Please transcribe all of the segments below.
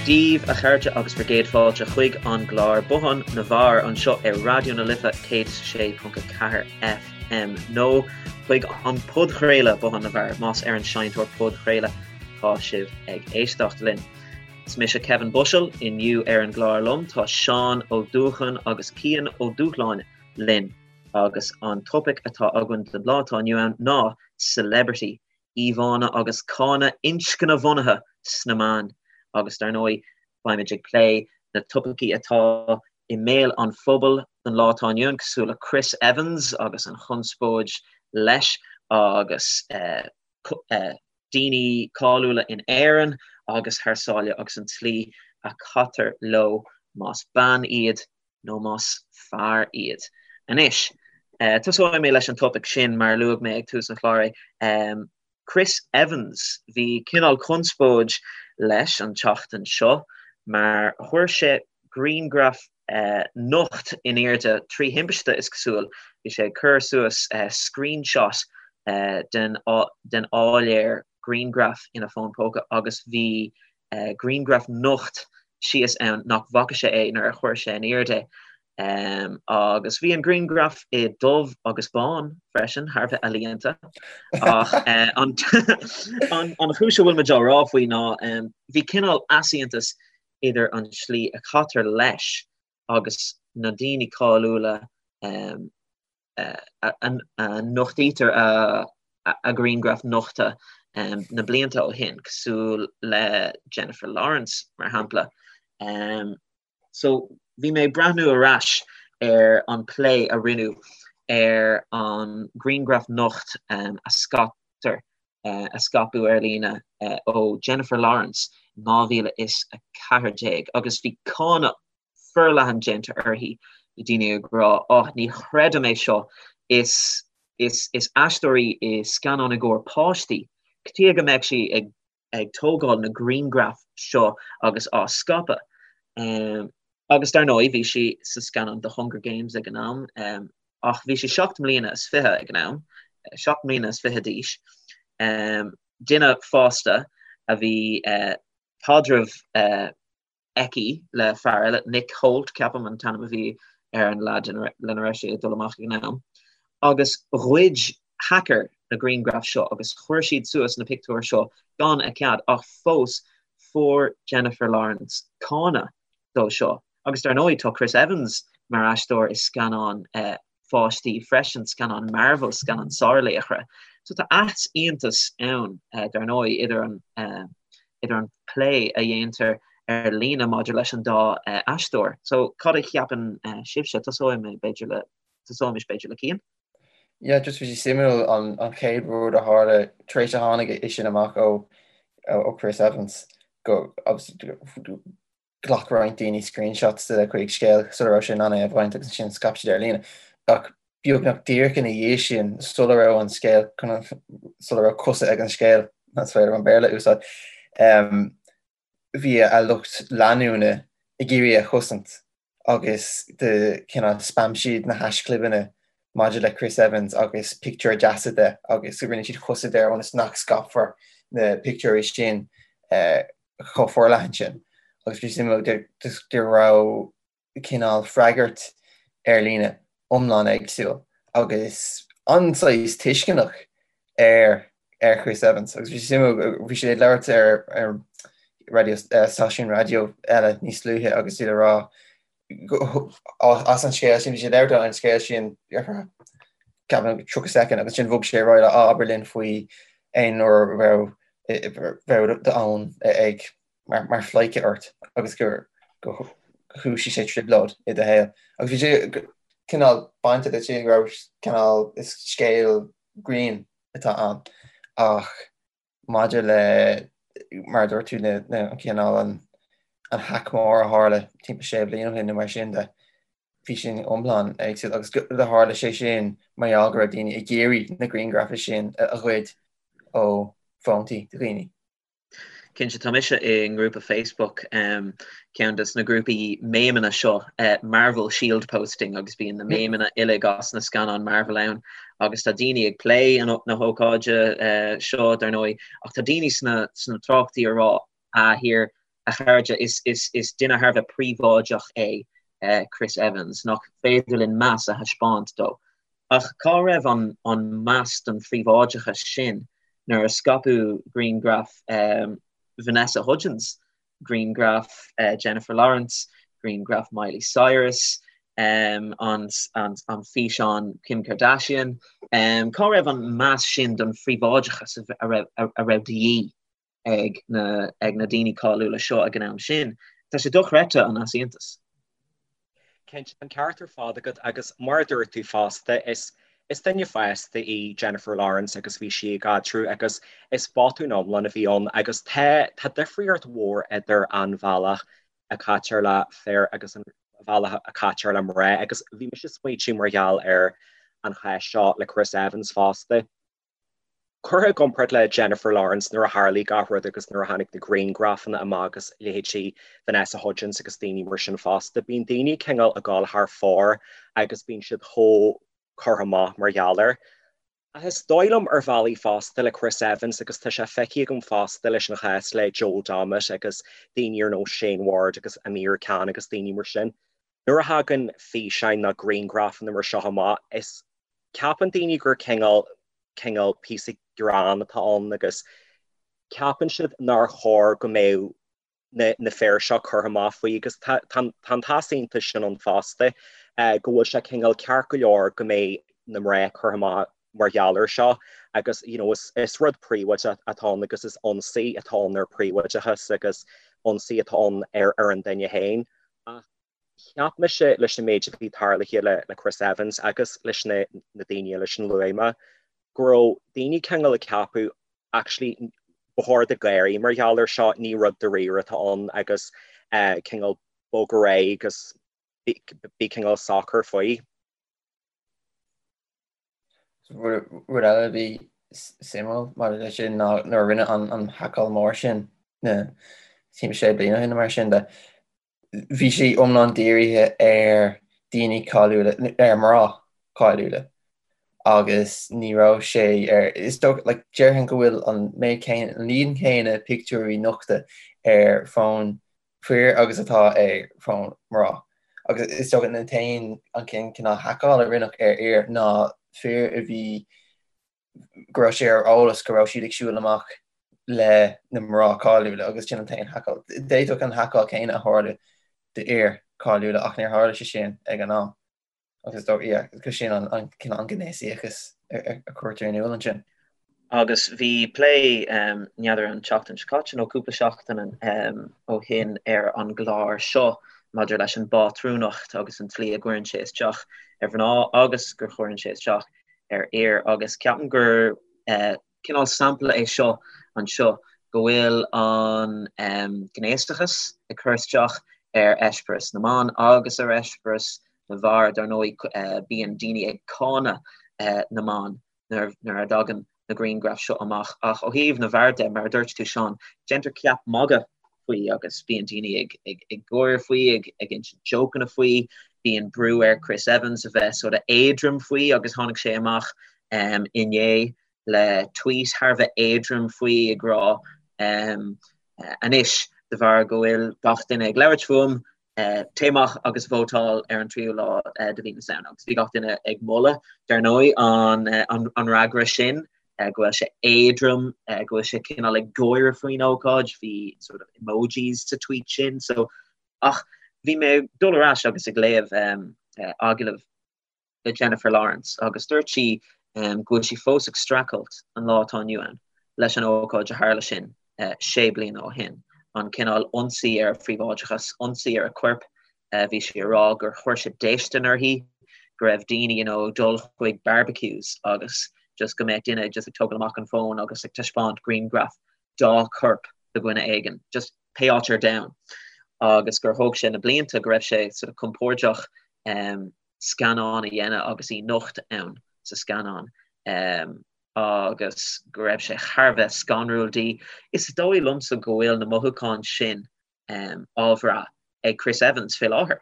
Daoibh a chairde agus bhur gcéad fáilte chuig an gclár Bothán na bhFear anseo ar Raidió na Life 106.4 FM nó chuig an podchraoladh Bothán na bhFear más ar an seinnteoir podchraoladh atá sibh ag éisteacht linn. Is mise Kevin Bushell, inniu ar an gclár liom tá Seán Ó Dúcháin agus Cian Ó Dúshláine linn agus an topaic atá againn don lá atá inniu ann ná Celebrity íomhánna agus cáineadh inscnebhunaithe sna meáin agus dar ndóigh beimid ag plé na topaicí atá i mbéal an phobail don lá atá inniu ann cosúil le Chris Evans agus an chonspóid leis agus daoine cáiliúla in Éirinn agus thar sáile agus an tslí a chaitear leo más bean iad nó más fear iad. Anois, tosóidh mé leis an topaic sin mar a luaigh mé ag tús an chláir é. Chris Evans, bhí cineál conspóid leis an tseachtain seo mar chuir sé grianghraf nocht in airde trí thimpiste, is cosúil. Bhí sé ag cur suas screenshot den áiléar grianghraf ina fón póca agus bhí grianghraf nocht síos ann nach bhfaca sé é nuair a chuir sé in airde é. Agus bhí an grianghraf i dubh agus bán freisin, thar a bheith ealaíonta. Ach an chúis a bhfuil muid á rá faoi ná bhí cineál easaontas idir an tslí a chaitear leis agus na daoine cáiliúla a nochtaítear a ngrianghraif nochta na blianta ó shin, cosúil le Jennifer Lawrence, mar shampla. So, bhí mé ag breathnú ar ais ar an plé a rinneadh ar an ghrianghraf nocht a scaiptear, a scaipeadh ar líne ó Jennifer Lawrence in 2014 agus bhí cáineadh forleathan déanta uirthi, bhí daoine ag rá, oh, ní chreidim é seo, is, is, is aisteoir í i scannáin i gcomhair páistí, cad chuige go mbeadh sí ag, ag tógáil na grianghraif seo agus á scaipeadh? Agus dar ndóigh, bhí sí sa scannán The Hunger Games ag an am, ach bhí sí 7 mbliana is 20 ag an am, 7 mbliana is 20 d'aois, duine fásta a bhí caidreamh aici le fear eile, Nick Hoult, ceapaim an t-ainm a bhí ar an leaid lena raibh sí ag dul amach ag an am, agus ghoid hacker na grianghraif seo agus chuir siad suas na pictiúir seo gan a cead ach fós fuair Jennifer Lawrence cáineadh dó seo. Agus dar ndóigh tá Chris Evans mar aisteoir i scannán pháistí freisin, scannán Marvel, scannán sárlaochra. So tá easaontas ann, dar ndóigh, idir an idir an plé a dhéantar ar líne maidir leis an dá aisteoir. So cad a cheapann sibhse? Tosóidh mé b'fhéidir le tosóimis b'fhéidir le Cian. Yeah, just bhí sé suimiúil an an chéad rud a tharla tar éis a tháinig é sin amach ó ó Chris Evans go Ghlac roinnt daoine screenshots de chuid scéal sula raibh sé in ann é a bhaint agus ansin scaip siad ar líne. Ach beagnach díreach ina dhiaidh sin, sula raibh an scéal, sula raibh cosa ag an scéal, más féidir an Béarla a úsáid, bhí a lucht leanúna ag iarraidh é a chosaint agus de cineál spam siad na haischlibeanna maidir le Chris Evans agus pictiúir deasa de agus rinne siad chosaint air ionas nach scaipfear na pictiúirí sin chomh forleathan sin agus bhí suimiúil go raibh cineál freagairt ar líne iomlán éagsúil agus an-saghas tuisceanach ar ar Chris Evans agus bhí sé suimiúil bhí sé ag labhairt ar ar raidió stáisiún raidió eile níos luaithe agus iad ag rá as an scéal sin, bhí sé ag labhairt an scéal sin ar feadh ceapaim 30 soicind agus ansin bhog sé ar aghaidh le abair linn faoi aon uair a raibh raibh d'fhón ag mar mar phleidhce ort agus gur go chúisigh sé trioblóid i do shaol. Agus bhí sé cineál bainte de sin go raibh cineál is scéal grinn atá ann ach maidir le, mar a dúirt tú, an cineál, an hack mór a tharla timpeall sé bliana ó shin nó mar sin de, bhí sin iomlán éagsúil agus do tharla sé sin mar gheall go raibh daoine ag iarraidh na grianghrafa sin a ghoid ó fóntaí dhaoine. Cinnte, tá mise i ngrúpa Facebook, ceann de na grúpaí méimeanna seo, Marvel Shield Posting, agus bíonn na méimeanna uilig as na scannáin Marvel ann agus tá daoine ag plé na hócáide seo, dar ndóigh, ach tá daoine sna sna tráchtaí ag rá, ah, here. A chairde, is duine thar a bheith príobháideach é Chris Evans, nach féidir linn meas a thaispeáint dó? Ach cá raibh an meas don phríobháideachas sin nuair a scaipeadh grianghraif Vanessa Hudgens, grianghraif Jennifer Lawrence, grianghraif Miley Cyrus, an físeán Kim Kardashian? Cá raibh an meas sin don phríobháideachas a raibh de dhíth ag na ag na daoine cáiliúla seo ag an am sin. Tá sé dochreidte an easaontas. Cinnte, tá an ceart ar fad agat agus mar a dúirt tú fosta, is is duine fásta í Jennifer Lawrence agus bhí sí i gcaidreamh agus is botún iomlán a bhí ann agus tá tá difríocht mhór idir an bhealach a caitear le fir agus an bhealach a caitear le mná agus bhí mise ag smaoitiú mar gheall ar an chás seo le Chris Evans fosta. Curtha i gcomparáid le Jennifer Lawrence nuair a tharlaigh gach rud agus nuair a tháinig na grianghrafanna amach agus leithéidí Vanessa Hudgens agus daoine mar sin fosta, bíonn daoine cineál ag gabháil thar fóir agus bíonn siad chomh curtha amach mar gheall air. Ach is dóigh liom ar bhealaí fosta le Chris Evans agus tá sé feicthe agam fosta leis an chás le Joel Dommett agus daoine ar nós Shane Ward agus Amir Khan agus daoine mar sin, nuair a thagann físeáin nó grianghrafanna mar seo amach, is Ceapann daoine gur cineál, cineál píosa greann atá ann agus ceapann siad nár chóir go mbeadh na, na fir seo curtha amach faoi agus tá, tá, tá an t-easaontas sin ann fosta, go bhfuil sé cineál ceart go leor go mbeidh na mná curtha amach mar gheall air seo agus you know is, is rud príobháideach atá ann agus is ionsaí atá ann ar príobháideachas agus ionsaí atá ann ar, ar an duine féin. Ach Cheap mise leis an méid a bhí tarlaithe le Chris Evans agus leis na daoine eile sin a luaigh mé, go raibh daoine cineál ag ceapadh actually ba chóir duit gáirí mar gheall air seo, ní rud dáiríre atá ann agus cineál bog ar aghaidh agus bí cineál socair faoi. Rud eile a bhí suimiúil maidir leis sin ná nuair a rinneadh an haiceáil mór sin na timpeall sé bliana ó shin nó mar sin de, bhí sé iomlán dírithe ar daoine cáiliúla, ar mná cáiliúla agus ní raibh sé ar, is dócha, like, déarfainn go bhfuil an méid céanna, an líon céanna pictiúirí nochta ar fón fir agus atá ar fón mná. Agus is dócha an t-aon, an cineál haiceáil a rinneadh ar fhir ná fir a bhí go raibh sé ar eolas go raibh siad ag siúl amach le na mná cáiliúla agus sin an t-aon haiceáil. D'fhéadfadh an haiceáil céanna a tharlú d'fhir cáiliúla ach níor tharla sé sin ag an am. Agus is yeah, go sin an an cineál an gnéasaíochas a cuirtear in iúl ansin. Agus bhí plé n'fheadar an tseachtain seo caite nó cúpla seachtain ó shin ar an gclár seo maidir leis an bpátrúnacht agus an tslí a gcuireann sé isteach ar mhná agus gur chuireann sé isteach ar fhir agus ceapaim gur cineál sampla é seo anseo go bhfuil an gnéasachas ag cur isteach ar eispéireas na mban agus ar eispéireas na bhfear. Dar ndóigh bíonn daoine ag cáineadh na mban nuair a dtagann na grianghraif seo amach ach ó thaobh na bhfear de, mar a dúirt tú Seán, déantar ceap magaidh faoi agus bíonn daoine ag ag ag gáire faoi, ag ag insint jócanna faoi, bíonn brú ar Chris Evans a bheith sort of éadrom faoi agus tháinig sé amach um, inné le tweet thar a bheith éadrom faoi ag rá um, anois de bharr go bhfuil gach duine ag labhairt fúm, Téigh amach agus vótáil ar an tríú lá de mhí na Samhna. Agus bhí gach duine ag moladh, dar ndóigh, an fhreagra sin, go bhfuil sé éadrom, go bhfuil sé cineál ag gáire faoin ócáid, bhí sort of emojis sa tweet sin. So, ach bhí mé ag dul ar ais agus ag léamh agallamh le Jennifer Lawrence agus dúirt sí go bhfuil sí fós ag streachailt an lá atá inniu ann leis an ócáid a tharla sin sé bliana ó shin, an cineál ionsaí ar a phríobháideachas, ionsaí ar a corp. Bhí sí ag rá gur chuir sé déistin uirthi, go raibh daoine you know ag dul chuig barbecues agus just go mbeadh duine just ag tógáil amach an fón agus ag taispeáint grianghraf dá corp do dhuine éigin, just pé áit ar domhan. Agus gur thóg sé na blianta go raibh sé sort of compordach scannán a dhéanamh agus í nocht ann sa scannán agus go raibh sé thar a bheith scanrúil di. Is dóigh liomsa go bhfuil na mothúcháin sin á bhrath ag Chris Evans fé láthair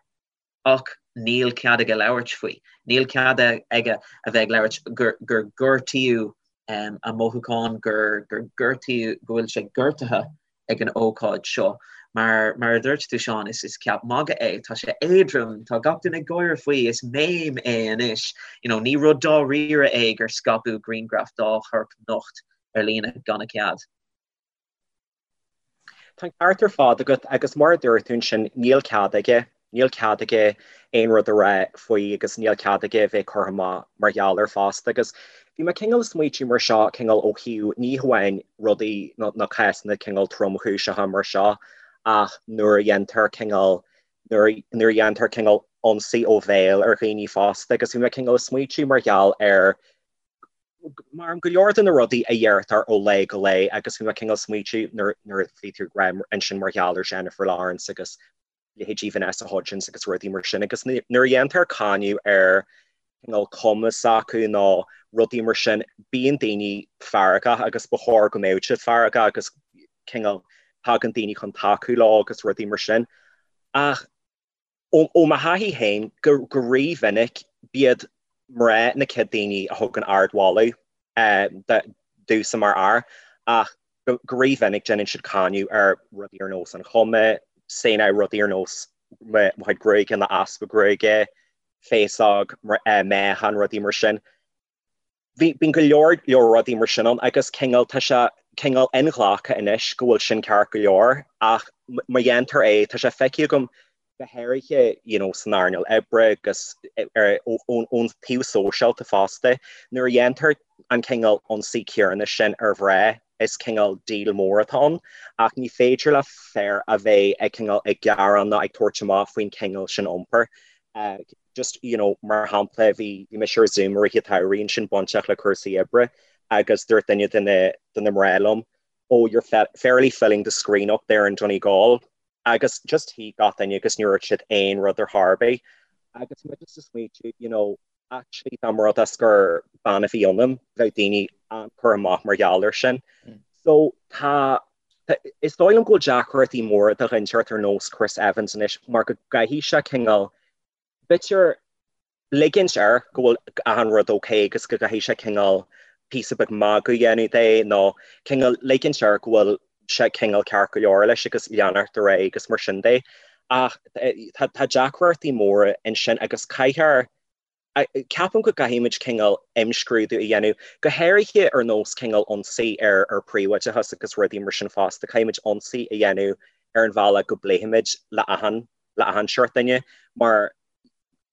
ach níl cead aige labhairt faoi. Níl cead aige a bheith ag labhairt gur gur gortaíodh a mothúcháin, gur gur gortaíodh, go bhfuil sé gortaithe ag an ócáid seo. Mar mar a dúirt tú Seán, is is ceap magaidh é, tá sé éadrom, tá gach duine ag gáire faoi, is meme é anois. You know, ní rud dáiríre é gur scaipeadh grianghraf dá chorp nocht ar líne gan a cead. Tá an ceart ar fad agat agus mar a dúirt tú ansin, níl cead aige, níl cead aige aon rud a rá faoi agus níl cead aige a bheith curtha amach mar gheall air fosta agus bhí mé cineál ag smaoitiú mar seo cineál ó thaobh ní hamháin rudaí nó cásanna cineál tromchúiseacha mar seo ach nuair a dhéantar cineál nuair a dhéantar cineál ionsaí ó bhéal ar dhaoine fosta agus bhí mé cineál ag smaoitiú mar gheall ar Mar go leor de na rudaí a dheirtear ó lá go lá agus bhí mé cineál smaoitiú nuair a bhí tú ag rá ansin mar gheall ar Jennifer Lawrence agus leithéidí Vanessa Hudgens agus rudaí mar sin agus nuair a dhéantar cáineadh ar cineál cuma s'acu nó rudaí mar sin bíonn daoine feargach agus ba chóir go mbeadh siad feargach agus cineál tagann daoine chun tacú leo agus rudaí mar sin ach Ó mo thaithí féin, go rí-mhinic, b'iad mná na chéad daoine a thugann ardmholadh domhsa mar fhear, ach go rí-mhinic déanann siad cáineadh ar rudaí ar nós an chuma, say now rudaí ar nós mo chuid gruaige nó easpa gruaige, féasóg, meáchan, rudaí mar sin. Bhí, bíonn go leor leor rudaí mar sin ann agus cineál, tá sé cineál inghlactha anois go bhfuil sin ceart go leor ach má dhéantar é, tá sé feicthe agam go háirithe you know san earnáil oibre agus ar, ón, ón taobh sóisialta fosta, nuair a dhéantar an cineál ionsaí céanna sin ar mhná, is cineál deal mór atá ann ach ní féidir le fear a bheith ag cineál ag gearán nó ag tabhairt amach faoin cineál sin iompair. Just, you know, mar shampla, bhí bhí mise ar Zoom i rith an tsamhraidh ansin bainteach le cúrsaí oibre agus dúirt duine de na de na mná liom, oh, you're fairly filling the screen up there in Donegal. Agus just shuigh gach duine agus níor dhúirt siad aon rud ar chor ar bith. Agus mé just ag smaoitiú, you know, actually dá mba rud é gur bean a bhí ionam, bheadh daoine an-curtha amach mar gheall air sin. So tá is dóigh liom go bhfuil deacrachtaí móra do dhuine inteacht ar nós Chris Evans anois mar go gcaithfidh sé cineál b'fhéidir ligint air go bhfuil achan rud ok agus go gcaithfidh sé cineál píosa beag magadh a dhéanamh de nó cineál ligint air go bhfuil sé cineál ceart go leor leis agus leanacht ar aghaidh agus mar sin de. Ach tá deacrachtaí móra ansin agus caithfear Ceapaim go gcaithfimid cineál imscrúdú a dhéanamh, go háirithe ar nós cineál ionsaí ar ar príobháideachas agus rudaí mar sin fosta. Caithfimid ionsaí a dhéanamh ar an bhealach go bpléifimid le achan le achan seort duine mar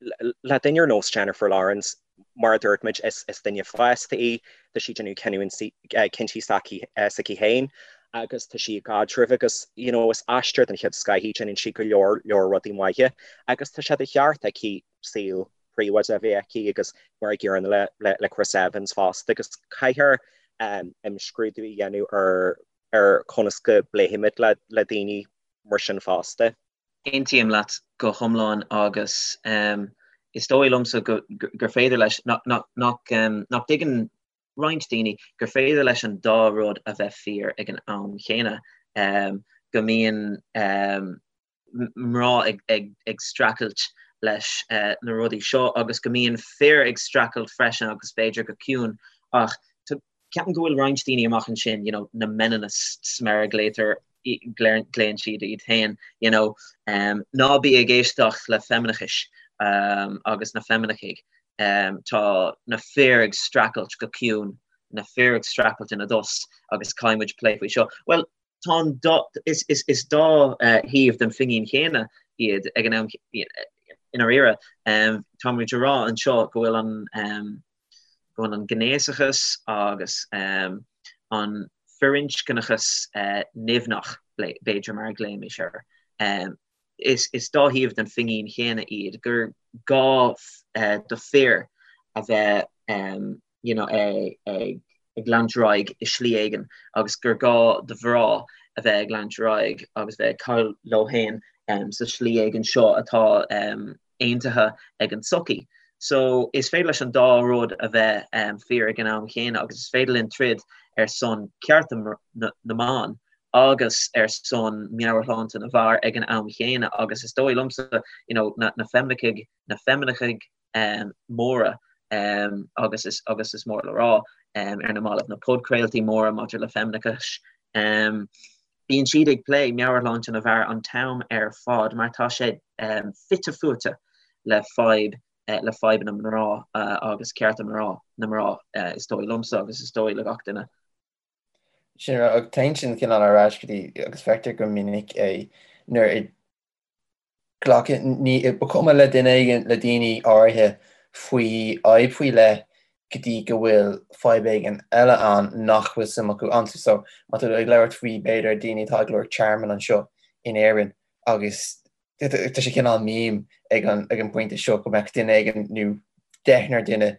le duine ar nós Jennifer Lawrence, mar a dúirt muid, is is duine fásta í, tá sí ag déanamh cinniúintí cinntí s'aici s'aici féin agus tá sí i gcaidreamh agus you know is aisteoir den chéad scoth í, déanann sí go leor leor rudaí maithe agus tá sé de cheart aici saol príobháideach a bheith aici agus mar an gcéanna le Chris Evans fosta agus caithfear imscrúdú a dhéanamh ar ar conas go bpléifimid le le daoine mar sin fosta. Aontaím leat go hiomlán agus is dóigh liomsa gur féidir leis, nach dtuigeann roinnt daoine gur féidir leis an dá rud a bheith fíor ag an am chéanna, go mbíonn mná ag streachailt leis na rudaí seo agus go mbíonn fir ag streachailt freisin agus b'fhéidir go ciúin ach ceapaim go bhfuil roinnt daoine amach ansin, you know, na meninists mar a ghlaotar, glaonn siad iad féin, you know, ná bí ag éisteacht le feimineachais agus na feimineachaigh, tá na fir ag streachailt go ciúin, na fir ag streachailt ina dtost agus caithfidh muid plé faoi seo. Bhuel, tá an dá, is, is, is dá thaobh den phingin chéanna iad ag an am, i ndáiríre. Tá muid ag rá anseo go bhfuil an, go bhfuil an gnéasachas agus an firinscneachas nimhneach, b'fhéidir, mar a ghlaoimis air. Is, is dá thaobh den phingin chéanna iad, gur gá do fir a bheith you know, ag leanúint ar aghaidh i slí éigin agus gur gá do mhná a bheith ag leanúint ar aghaidh agus bheith ag caitheamh leo féin sa slí éigin seo atá aontaithe ag an tsochaí. So is féidir leis an dá rud a bheith fíor ag an am chéanna agus is féidir linn troid ar son cearta na mban agus ar son meabhairshláinte na bhfear ag an am chéanna agus is dóigh liomsa you know, na, na feimineachaigh, na feimineachaigh móra agus is agus is mór le rá ar na mallaibh na podchraoltaí móra maidir le feimineachas. Bíonn siad ag plé meabhairshláinte na bhfear an t-am ar fad mar tá sé fite fuaite le fadhb le fadhbanna mná agus cearta mná na mná is dóigh liomsa agus is dóigh le gach duine. Sin rud, téann sin cineál ar ais go dtí agus feictear go minic é nuair a glacann, ní, ba chuma le duine éigin, le daoine áirithe faoi fhadhb faoi leith go dtí go bhfuil fadhb éigin eile ann nach bhfuil suim acu antu. So, má tá tú ag labhairt faoi, b'fhéidir, daoine atá ag lorg tearmainn anseo in Éirinn agus tá sé cineál meme ag an, ag an bpointe seo go mbeadh duine éigin nó deichniúr duine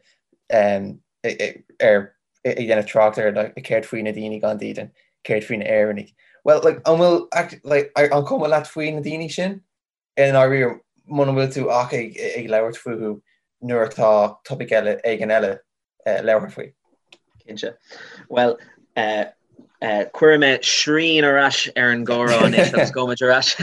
ar ag déanamh trácht ar like, céard faoi na daoine gan dídean, céard faoi na Éireannaigh. Well, like, an bhfuil like, an cuma leat faoi na daoine sin? I ndáiríre, muna bhfuil tú ach ag, ag labhairt fúthu nuair atá topaic eile éigin eile eh, labhartha faoi. Cinnte. Well, eh, eh, cuirfidh mé srian ar ais ar an gcomhrá anois agus gabhfaimid ar ais.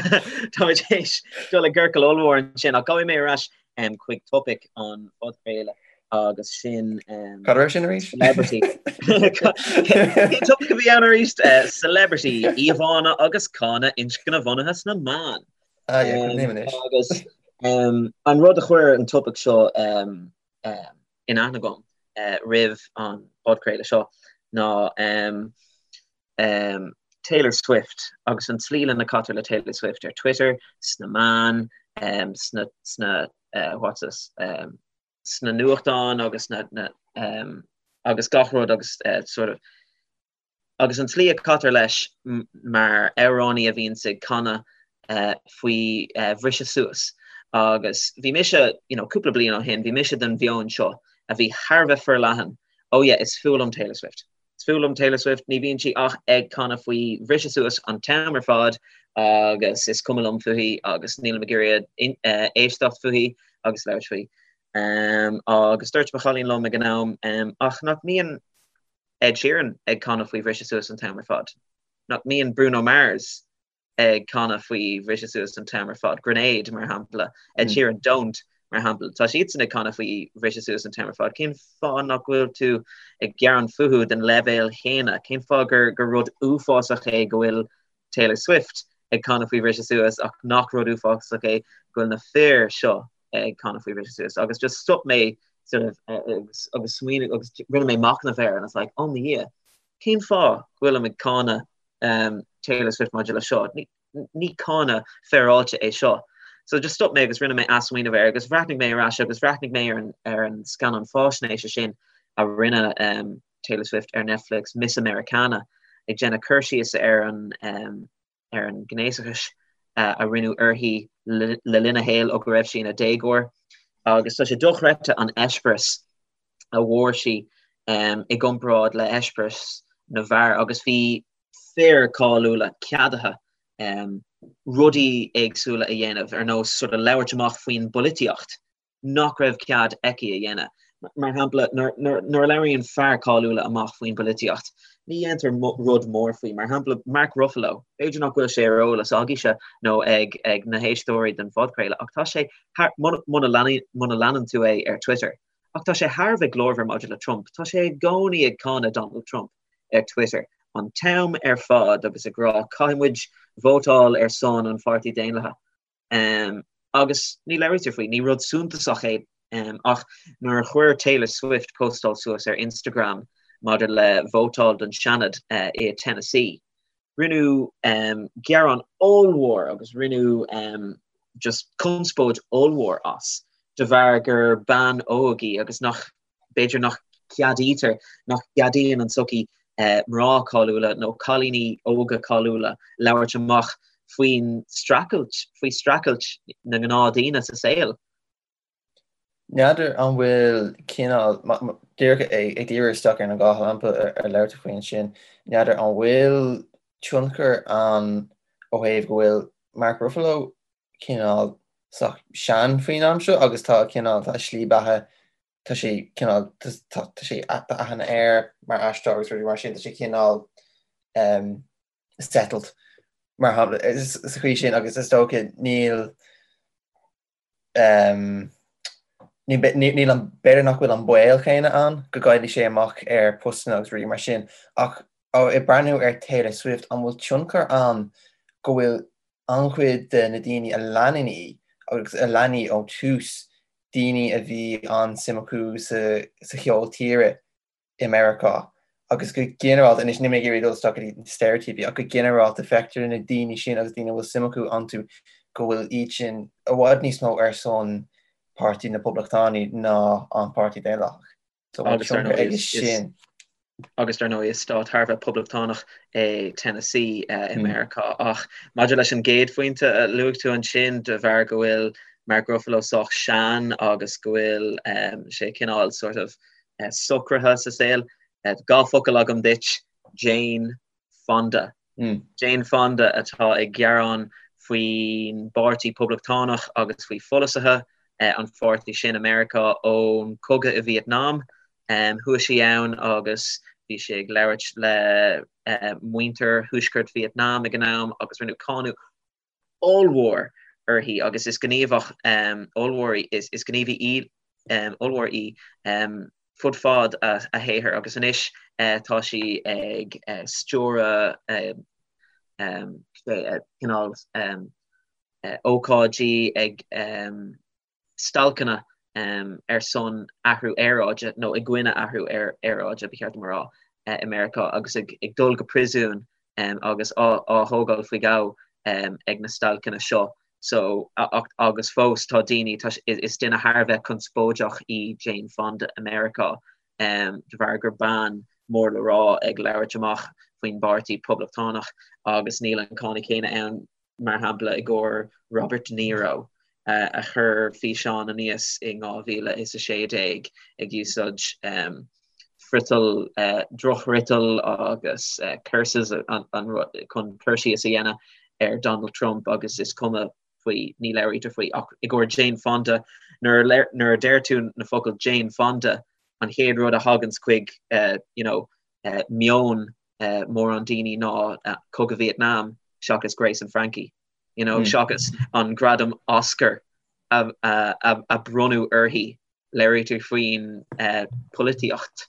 Táimid théis dul i gciorcal ollmhór ansin ach gabhfaidh mé ar ais um, chuig topaic an phodchraoladh agus sin um, Cad raibh sin arís? Celebrity. Cén topaic a bhí ann arís? Uh, celebrity, íomhánna agus cáineadh inscnebhunaithe sna meáin. Ah, yeah, cuimhním anois. Agus um, an rud a chuir an topaic seo um, um, in aithne agam uh, roimh an podchraoladh seo ná um, um, Taylor Swift agus an tslí lena caitear le Taylor Swift ar Twitter, sna meáin, um, sna, sna, uh, what's this, um, sna nuachtáin agus na, na, um, agus gach rud agus uh, sort of agus an tslí a caitear leis mar amhránaí a bhíonns ag canadh uh, faoi uh, bhriseadh suas. Agus bhí mise, you know, cúpla bliain ó shin, bhí mise den mheon seo a bhí thar a bheith forleathan, oh yeah, is fuath liom Taylor Swift. Is fuath liom Taylor Swift, ní bhíonn sí ach ag canadh faoi bhriseadh suas an t-am ar fad agus is cuma liom fúithi agus nílim ag iarraidh éisteacht fúithi agus labhairt faoi. Agus dúirt mo chailín liom ag an am, ach nach mbíonn Ed Sheeran ag canadh faoi bhriseadh suas an t-am ar fad? Nach mbíonn Bruno Mars ag canadh faoi bhriseadh suas an t-am ar fad, Grenade mar shampla, Ed Sheeran Don't mar shampla, tá siadsan ag canadh faoi bhriseadh suas an t-am ar fad, cén fáth nach bhfuil tú ag gearán fúthu den leibhéal chéanna? Cén fáth gur gur rud uafásach é go bhfuil Taylor Swift ag canadh faoi bhriseadh suas ach nach rud uafásach é go bhfuil na fir seo ag canadh faoi bhriseadh suas? Agus just stop mé sort of agus agus smaoinigh agus rinne mé machnamh air and I was like, oh mo Dhia, cén fáth go bhfuilim ag cáineadh Taylor Swift maidir le seo. Ní cáineadh féaráilte é seo. So just stop mé agus rinne mé athsmaoineamh air agus bhreathnaigh mé ar ais agus bhreathnaigh mé ar an, ar an scannán fáisnéise sin a rinne um, Taylor Swift ar Netflix, Miss Americana, ag déanamh cur síos ar an, um, ar an gnéasachas uh, a rinneadh uirthi le, le linn a shaoil ó go raibh sí ina déagóir. Agus tá sé dochreidte an eispéireas a bhfuair sí i gcomparáid le heispéireas na bhfear agus bhí fir cáiliúla ceadaithe rudaí éagsúla a dhéanamh ar nós sort of labhairt amach faoin bpolaitíocht nach raibh cead aici a dhéanamh. Mar shampla, nuair a labhraíonn fear cáiliúla amach faoin bpolaitíocht, ní dhéantar rud mór faoi. Mar shampla, Mark Ruffalo, b'fhéidir nach bhfuil sé ar eolas agaibhse nó ag ag na héisteoirí den phodchraoladh ach tá sé thar, muna leanann tú é ar Twitter, Ach tá sé thar a bheith glórmhar maidir le Trump. Tá sé i gcónaí ag cáineadh Donald Trump ar Twitter an t-am ar fad agus ag rá caithfidh muid vótáil ar son an Pháirtí Daonlathaigh. Agus ní labhraítear faoi, ní rud suntasach é. Ach nuair a chuir Taylor Swift postáil suas ar Instagram maidir le vótáil don Seanad i Tennessee, Rinneadh gearán ollmhór agus rinneadh just conspóid ollmhór as de bharr gur bean óg í agus nach, b'fhéidir nach gceadaítear, nach gceadaíonn an tsochaí mná cáiliúla nó cailíní óga cáiliúla labhairt amach faoin streachailt, faoi streachailt na ngnáthdhaoine sa saol. N'fheadar an bhfuil cineál, díreach ag díriú isteach ar an dá shampla ar labhair tú faoi ansin, n'fheadar an bhfuil tionchar ann ó thaobh go bhfuil Mark Ruffalo cineál sách sean faoin am seo agus tá cineál, tá a shlí beatha, tá sé cineál, tá sé, tá aithne air mar aisteoir agus rudaí mar sin, tá sé cineál settled mar shampla sa chaoi sin agus is dócha níl Níl an, b'fhéidir nach bhfuil an baol céanna ann go gcaillfidh sé amach ar postanna agus rudaí mar sin ach Ag breathnú ar Taylor Swift, an bhfuil tionchar ann go bhfuil an-chuid de na daoine a leanann í agus a lean í ó tús, daoine a bhí an-suim acu sa cheol tíre i Meiriceá agus go ginearálta, anois níl mé ag iarraidh dul isteach go dtí na steiréitíopaí, ach go ginearálta feictear na daoine sin agus daoine a bhfuil suim acu iontu go bhfuil iad sin i bhfad níos mó ar son Páirtí na Poblachtánaí ná an Páirtí Daonlathach. So an Agus dar tionchar ndóigh aige is, is, sin. agus dar ndóigh is stát thar a bheith poblachtánach é Tennessee i Meiriceá. Ach maidir leis an gcéad phointe a luaigh tú ansin, de bharr go bhfuil Mark Ruffalo sách sean agus go bhfuil sé cineál sort of socraithe sa saol, 2 focal agam duit, Jane Fonda. Jane Fonda atá ag gearán faoin bPáirtí Poblachtánach agus faoi pholasaithe an pháirtí sin i Meiriceá ón cogadh i Vietnam. Chuaigh sí ann agus bhí sí ag labhairt le muintir Thuaisceart Vietnam ag an am agus rinneadh cáineadh ollmhór uirthi agus is gníomhach ollmhór í, is gníomhaí ollmhór í fud fad a shaothair agus anois tá sí ag stiúradh cineál ócáidí ag stailceanna ar son athrú aeráide, nó i gcoinne athrú aeráide, ba cheart dom a rá, i Meiriceá agus ag dul go príosún agus á thógáil faoi ghabh ag na stailceanna seo. So, agus fós tá daoine, tá, is duine thar a bheith conspóideach í Jane Fonda i Meiriceá de bharr gur bean mór le rá ag labhairt amach faoin bPáirtí Poblachtánach agus níl an cáineadh céanna ann mar shampla i gcomhair Robert De Niro a chuir físeán aníos in 2016 ag úsáid friotal, drochfhriotal agus curses chun cur síos a dhéanamh ar Donald Trump agus is cuma faoi, ní labhraítear faoi ach i gcomhair Jane Fonda, nuair a deir tú na focail Jane Fonda an chéad rud a thaganns chuig you know meon mórán daoine ná Cogadh Vietnam seachas Grace and Frankie, you know, seachas an gradam Oscar a a bronnadh uirthi, labhraítear faoin polaitíocht.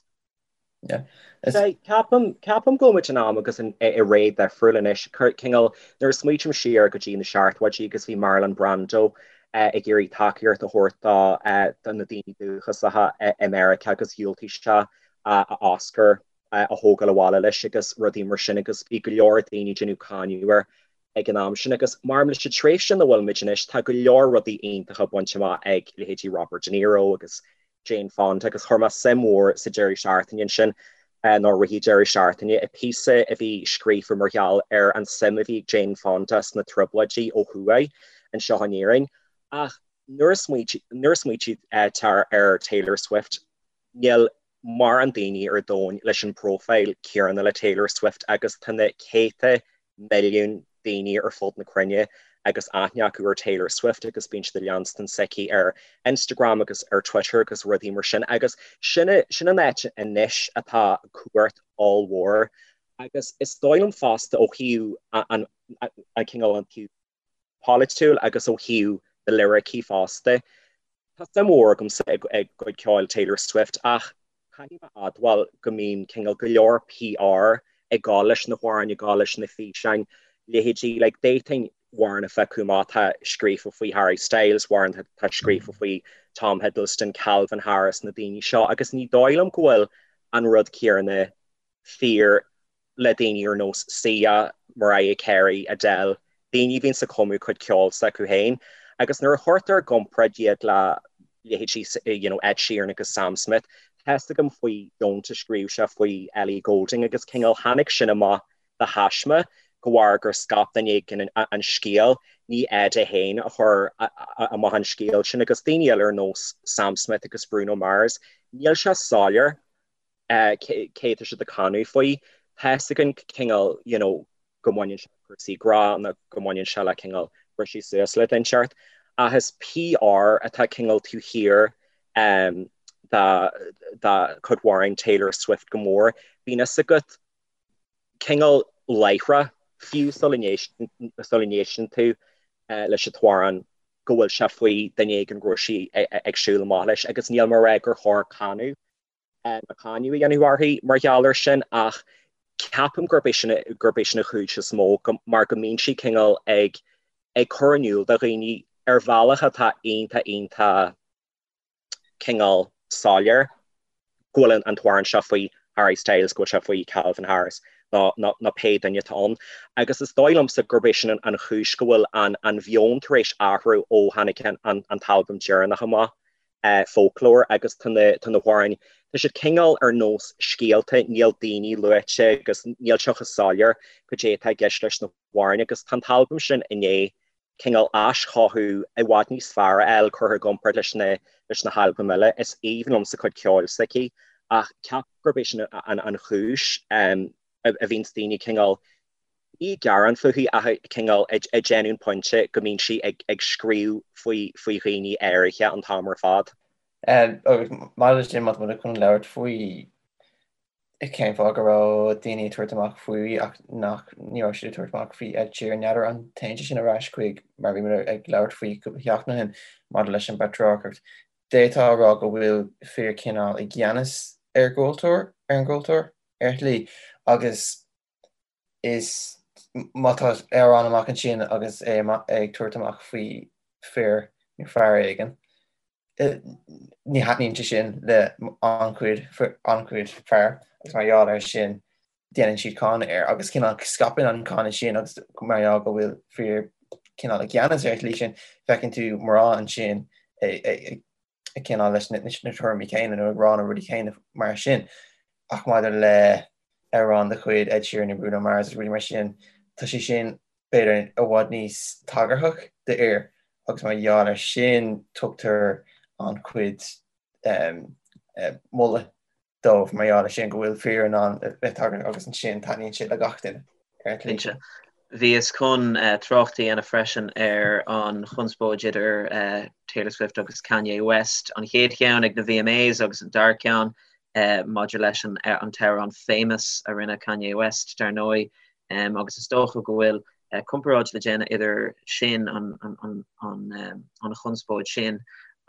Ceapaim ceapaim go bhfuil muid in am agus i ré difriúil anois. Cineál nuair a smaoitim siar go dtí na seachtóidí agus bhí Marlon Brando ag iarraidh tacaíocht a thabhairt do na daoine dúchasacha i Meiriceá agus dhiúltaigh sé a Oscar a thógáil abhaile leis agus rudaí mar sin agus bhí go leor daoine ag déanamh cáineadh air ag an am sin agus mar leis an tréimhse ina bhfuil muid anois tá go leor rudaí iontacha bainte amach ag leithéidí Robert De Niro agus Jane Fonda agus chuir mé suim mhór sa deireadh seachtaine ansin nó rith an deireadh seachtaine i píosa a bhí scríofa mar gheall ar an suim a bhí ag Jane Fonda sna trioblóidí ó thuaidh anseo in Éirinn ach nuair a smaoitítear ar Taylor Swift níl mórán daoine ar domhan leis an bpróifíl céanna le Taylor Swift agus tá na céadta milliún daoine ar fud na cruinne agus aithne acu ar Taylor Swift agus bíonn siad ag leanstan s'aici ar Instagram agus ar Twitter agus rudaí mar sin agus sin sin an áit anois atá cumhacht ollmhór agus is dóigh liom fosta ó thaobh an an cineál an taobh polaitiúil agus ó thaobh na liricí fosta. Tá suim mhór agamsa i gcuid ceoil Taylor Swift ach caithfidh mé a admháil go mbíonn cineál go leor PR ag gabháil leis na hamhráin, ag gabháil leis na físeáin, leithéidí like d'fhéadfainn amhrán a phiocadh amach atá scríofa faoi Harry Styles, amhrán atá scríofa faoi Tom Hiddleston, Calvin Harris, na daoine seo agus ní dóigh liom go bhfuil an rud céanna fíor le daoine ar nós Sia, Mariah Carey, Adele, daoine a bhíonns ag cumadh cuid ceoil s'acu féin agus nuair a chuirtear i gcomparáid iad le leithéidí you know Ed Sheeran agus Sam Smith, tá fhios agam faoi Don't a scríobh sé faoi Ellie Goulding agus cineál tháinig sin amach de thaisme de bharr gur scaip duine éigin an scéal, ní Ed é féin a chuir amach an scéal sin agus daoine eile ar nós Sam Smith agus Bruno Mars, níl sé soiléir cé tá siad ag canadh faoi. Tá fhios againn cineál you know go mbaineann sé le cúrsaí grá nó go mbaineann sé le cineál briseadh suas le duine inteacht ach is PR atá cineál taobh thiar de de chuid amhráin Taylor Swift go mór. Bíonn fhios agat cineál láithreach fiú sula n-éisteann tú leis an t-amhrán go bhfuil sé faoi duine éigin go raibh sí ag siúl amach leis agus níl mé ag rá gur chóir cáineadh cáineadh a dhéanamh uirthi mar gheall air sin ach. Ceapaim gurb é sin gurb é sin an chúis is mó mar go mbíonn sí cineál ag ag cur in iúl do dhaoine ar bhealach atá iontach iontach cineál soiléir go bhfuil an t-amhrán seo faoi Harry Styles, go bhfuil sé faoi Calvin Harris nó nó pé duine atá ann. Agus is dóigh liomsa gurb é sin an chúis go bhfuil an an mheon tar éis athrú ó tháinig an an t-albam deireanach amach. Folklore agus tá na tá na hamhráin, tá siad cineál ar nós scéalta, níl daoine luaite agus níl sé chomh soiléir cad é atá i gceist leis na hamhráin agus tá an t-albam sin i ndiaidh cineál aischothú i bhfad níos fearr a fháil curtha i gcomparáid leis na leis na halbaim eile. Is aoibhinn liomsa cuid ceoil s'aici ach ceapaim gurb é sin an an chúis a bhíonns daoine cineál ní ag gearán fúithi ach cineál ag déanamh an pointe go mbíonn sí ag scríobh faoi faoi dhaoine áirithe an t-am ar fad. Agus maidir leis sin, má tá muid chun labhairt faoi cén fáth go raibh daoine ag tabhairt amach faoi ach nach ní raibh siad ag tabhairt amach faoi Ed Sheeran, n'fheadar an dtéann sé sin ar ais chuig mar bhí muid ag labhairt faoi cúpla seachtain ó shin maidir leis an bpatrarcacht. D'fhéadfá a rá go bhfuil fir cineál i gceannas ar gcultúr, ar an gcultúr, ar shlí, agus is má tá amhrán amach ansin agus é ag tabhairt amach faoi fir nó fear éigin, ní thaitníonn sé sin le an-chuid an-chuid fear agus mar gheall air sin déanann siad cáineadh air agus cineál scaipeann an cáineadh sin agus mar gheall go bhfuil fir cineál i gceannas ar an tslí sin, feiceann tú mná ansin ag cineál leis na tuairimí céanna nó ag rá na rudaí céanna mar sin. Ach maidir le amhrán de chuid Ed Sheeran nó Bruno Mars agus rudaí mar sin, tá sé sin b'fhéidir i bhfad níos tagarthach d'fhir agus mar gheall air sin tugtar an-chuid moladh dóibh mar gheall air sin, go bhfuil fir in ann a bheith tagarthach agus ansin taitníonn sé le gach duine ar an tslí sin. Bhíos chun trácht a dhéanamh freisin ar an chonspóid idir Taylor Swift agus Kanye West, an chéad cheann ag na VMAs agus an dara ceann maidir leis an t-amhrán Famous a rinne Kanye West, dar ndóigh. Agus is dócha go bhfuil comparáid le déanamh idir sin, an chonspóid sin,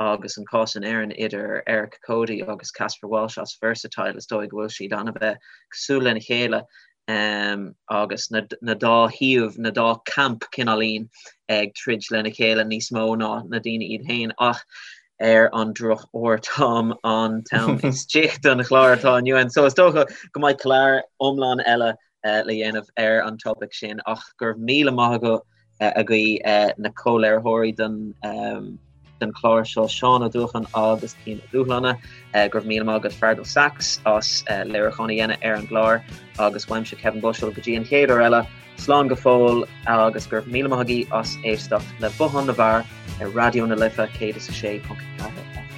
agus an cás in Éirinn idir Eric Cody agus Caspar Walsh as Versatile. Is dóigh go bhfuil siad an-bheith cosúil lena chéile agus na dá thaobh, na dá camp cineáilín ag troid lena chéile níos mó ná na daoine iad féin. Ach ar an drochuair tá an t-am istigh don chlár atá inniu ann. So is dócha go mbeidh clár iomlán eile le dhéanamh ar an topaic sin ach go raibh míle maith agat agaibh na comhléiritheoirí den den chlár seo Seán Ó Dúcháin agus Cian Ó Dúshláine go raibh míle maith agat Feargal Sachs as léiriúchán a dhéanamh ar an gclár agus uaimse Kevin Bushell go dtí an chéad uair eile slán go fóill agus go raibh míle maith agaibh as éisteacht le Bothán na bhFear ar Raidió na Life 106.4.